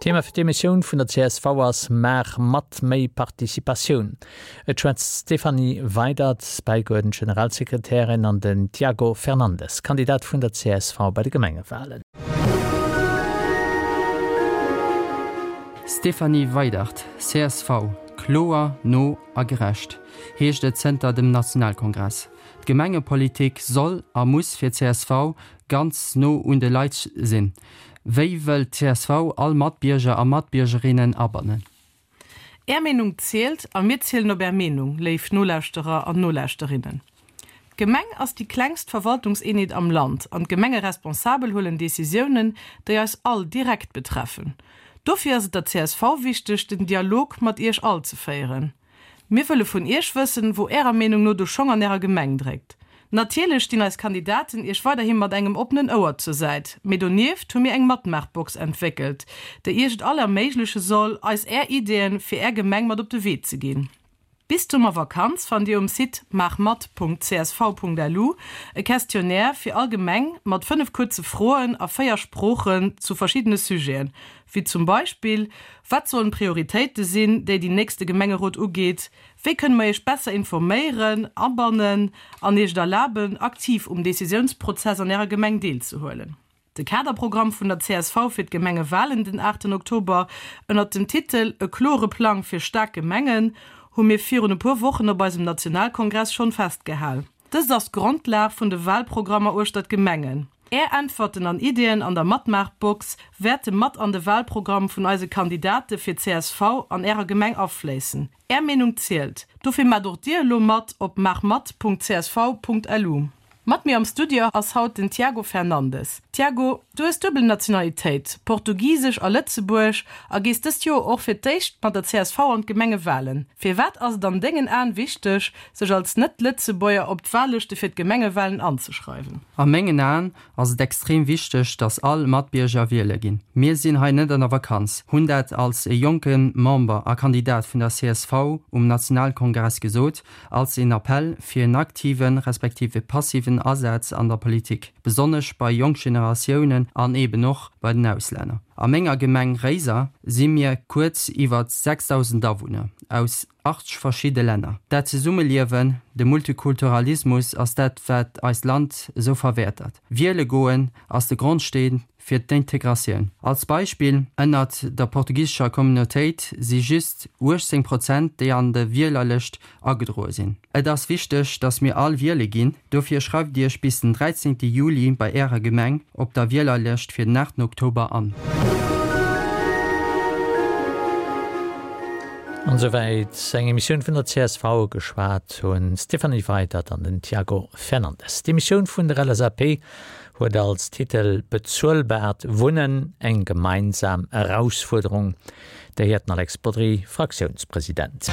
Thema fir d'Emissioun vun der csv ass Maach mat, méi Participatioun. Et schwätzt d'Stéphanie Weydert, bäigeuerdent Generalsekretärin, an den Tiago Fernandes, Kandidat vun der csv bei de Gemengewalen. Stéphanie Weydert, csv, Kloer, no a gerecht, heescht et zënter dem Nationalkongress. D'Gemengepolitik soll a muss fir csv ganz no un de Leit sinn. Wéi wëll d'CSV all Matbierger a Matbiergerinnen abannen? Är Meenung zielt a mir zielen op Är Meenung, léif Nolauschterer an Nolauschterinnen. D'Gemeng ass déi klengst Verwaltungseenheet am Land an d'Gemengeresponsabel huelen Decisiounen, déi eis all direkt betreffen. Dofir ass et der csv wichteg, den Dialog mat Iech all ze féieren. Mir wëlle vun Iech wëssen, wou Ärer Meenung no de Schong an Ärer Gemeng dréckt. Natierlech stinn eis Kandidaten Iech weiderhi mat engem oppenen Ouer zur Säit, mee donieft hu mir eng Matmaachbox entwéckelt, déi Iech et all erméigleche soll, eis Är Ideeën fir Är Gemeng mat op de Wee ze ginn. Bis d'Summervakanz fannt Dir um Site maachmat.csv.lu e Questionnaire fir all Gemeng mat 5 kuerze Froen a 4 Sproochen zu verschiddene Sujeten, wéi zum Beispill, Wat sollen d'Prioritéite sinn, déi déi nächste Gemengerot ugeet? Wéi kënne mer Iech besser informéieren, abannen an Iech et erlaben, aktiv um Decisiounsprozess an Ärer Gemeng deelzehuelen? De Kaderprogramm vun der csv fir d'Gemengewalen den aachten Oktober ënnert dem Titel E klore Plang fir staark Gemengen hu mir virun e puer Wochen op eisem Nationalkongress schonn festgehal. Dëst ass d'Grondlag vun de Walprogrammer uechter d'Gemengen. Är Äntwerten an Ideeën an der Matmaachbox wäerte mat an de Walprogramm vun eise Kandidate fir csv an Ärer Gemeng afléissen. Är Meenung zielt! Dofir maacht och Dir elo mat op maachmat.csv.lu. Mat mir am Studio ass haut den Tiago Fernandes. Tiago, du hues duebel Nationalitéit, portugisesch a lëtzebuerg, a gees dëst Joer och fir d'éischt mat der csv an d'Gemengewalen. Firwat ass et an dengen Aen wichteg, sech als Net-Lëtzebuerger op d'Wahllëschte fir d'Gemengewalen anzeschreiwen? A mengen Aen ass et extrem wichteg, dass all Matbierger wiele ginn. Mir sinn hei net an der Vakanz, hunn dat als e jonke Member a Kandidat vun der csv um Nationalkongress gesot, als een Appell fir en aktiven, respektiv e passiven Asaz an der Politik, besonnesch bei jonk Generatiounen an eben och bei den Auslänner. A menger Gemeng Réiser si mir kuerz iwwer 6.000 Awunner aus 80 verschidde Länner. Dat Zesummeliewen, de Multikulturalismus ass dat wat eist Land esou verwäertert. Wiele goen ass de Grondsteen fir d'Integratioun. Als Beispill, Ënnert der portugisescher Communautéit si just 18 Prozent déi an de Wielerlëscht agedroe sinn. Et ass wichteg, dass mir all wiele ginn. Dofir schreift Iech bis den 13 Juli bei Ärer Gemeng op der Wielerlëscht fir den 8 Oktober an. An esouwäit eng Emissioun vun der csv. Geschwat hunn d'Stéphanie Weydert an den Tiago Fernandes. D'Emissioun vun der LSAP huet als Titel Bezuelbart Wunnen, eng gemeinsam Erausfuerderung. Dir héiert den Alex Bodry, Fraktiounspresident.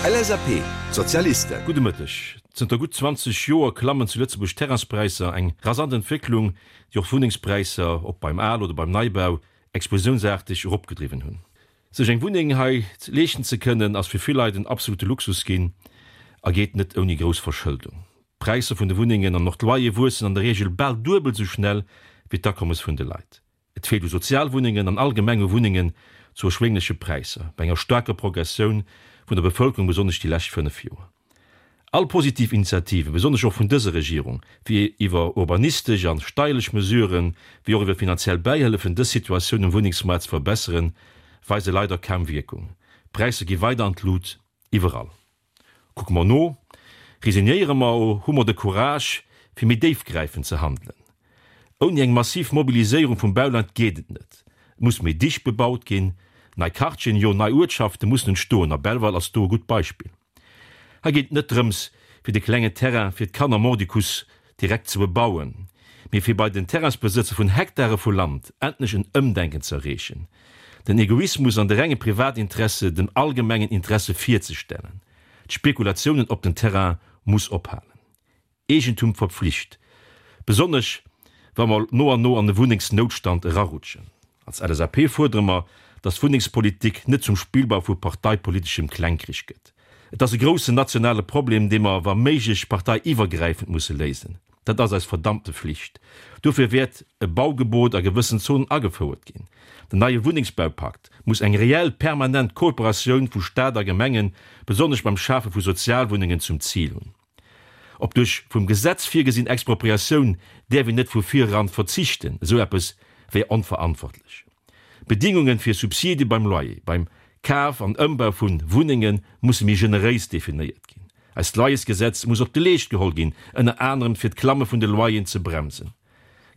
LSAP, D'Sozialisten. Gudde Mëtteg. Zënter gutt 20 Joer klammen zu Lëtzebuerg d'Terrainspräisser, eng rasant Entwécklung, déi och d'Wunnengspräisser, ob beim Al oder beim Neibau, explosiounsaarteg eropgedriwwen hunn. Sech eng Wunneng hei leeschten ze kënnen, ass fir vill Leit en absolute Luxus ginn a geet net ouni grouss Verschëldung. D'Präisser vun de Wunnengen an och d'Loyere wuessen an der Reegel bal duebel sou schnell wéi d'Akommes vun de Leit. Et feelt u Sozialwunnengen an allgemeng u Wunnengen zu erschwéngleche Präisser, bei enger staarker Progressioun vun der Bevëlkerung, besonnesch déi lescht 5 Joer. All positiv Initiativen, besonnesch och vun dëser Regierung, fir iwwer urbanistesch an steierlech Mesuren, wéi och iwwer finanziell Bäihëllefen dës Situatioun um Wunnengsmaart ze verbesseren, weise leider kaum Wierkung. D'Präisser gi weider an d'Lut, iwwerall. Kucke mer no, resignéiere mer o hu mer de Courage, fir méi déifgräifend ze handelen? Ouni eng massiv Mobiliséierung vum Bauland geet et net. Et muss méi dicht bebaut ginn, nei Quartieren, jo nei Uertschafte mussen entstoen a Belval ass do e gutt Beispill. Hei geet et net drëms, fir de klengen Terrain fir d'Kanner mordicus direkt ze bebauen, mee fir bei den Terrainsbesëtzer vun Hektare vu Land endlech en Ëmdenken ze erreechen, den Egoismus an de renge Privatinteresse dem allgemengen Interesse virzestellen. D'Spekulatiounen op den Terrain muss ophalen. Eegentum verpflicht, besonnesch wa mer no an no an e Wunnengsnoutstand erarutschen. Als LSAP fuerdere mer, dass d'Wunnengspolitik net zum Spillball vu parteipoliteschem Klengkrich gëtt. Et ass e groussen nationale Problem, dee mer wa méiglech parteiiwwergräifend musse léisen. Dat ass eis verdammte Flicht. Dofir wäert e Baugebot a gewëssen Zonen agefouert ginn. Den neie Wunnengsbaupakt muss eng reell permanent Kooperatioun vu Staat a Gemengen, besonnesch beim Schafe vu Sozialwunnengen, zum Zil hunn. Op duerch vum Gesetz virgesinn Expropriatioun däerf een net vu vireran verzichten, esou eppes wär onverantwortlech. D'Bedingungen fir Subside beim Loyer, beim Kaf an Ëmbau vu Wunnenge musse méi generéis definéiert ginn. Eist Loyersgesetz muss op de Leescht geholl ginn, ënner anerem fir d'Klamme vun de Loyeren ze bremsen.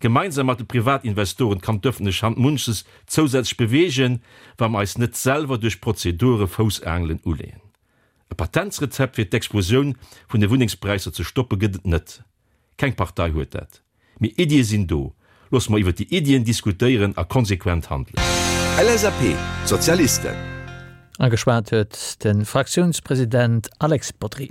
Gemeinsam mat de Privatinvestoren kann d'ëffentlech Hand munches zousätzlech beweegen, wa mer eis net selwer duerch Prozedure Foussaangelen uleeën. E Patentsrezept fir d'Explosioun vun de Wunnengspräisser ze stoppe gëtt et net. Keng Partei huet dat. Mee Iddie sinn do. Loosse mer iwwer déi Iddien diskutéieren a konsequent handelen. LSAP, D'Sozialisten. A geschwat huet de Fraktiounspresident Alex Bodry.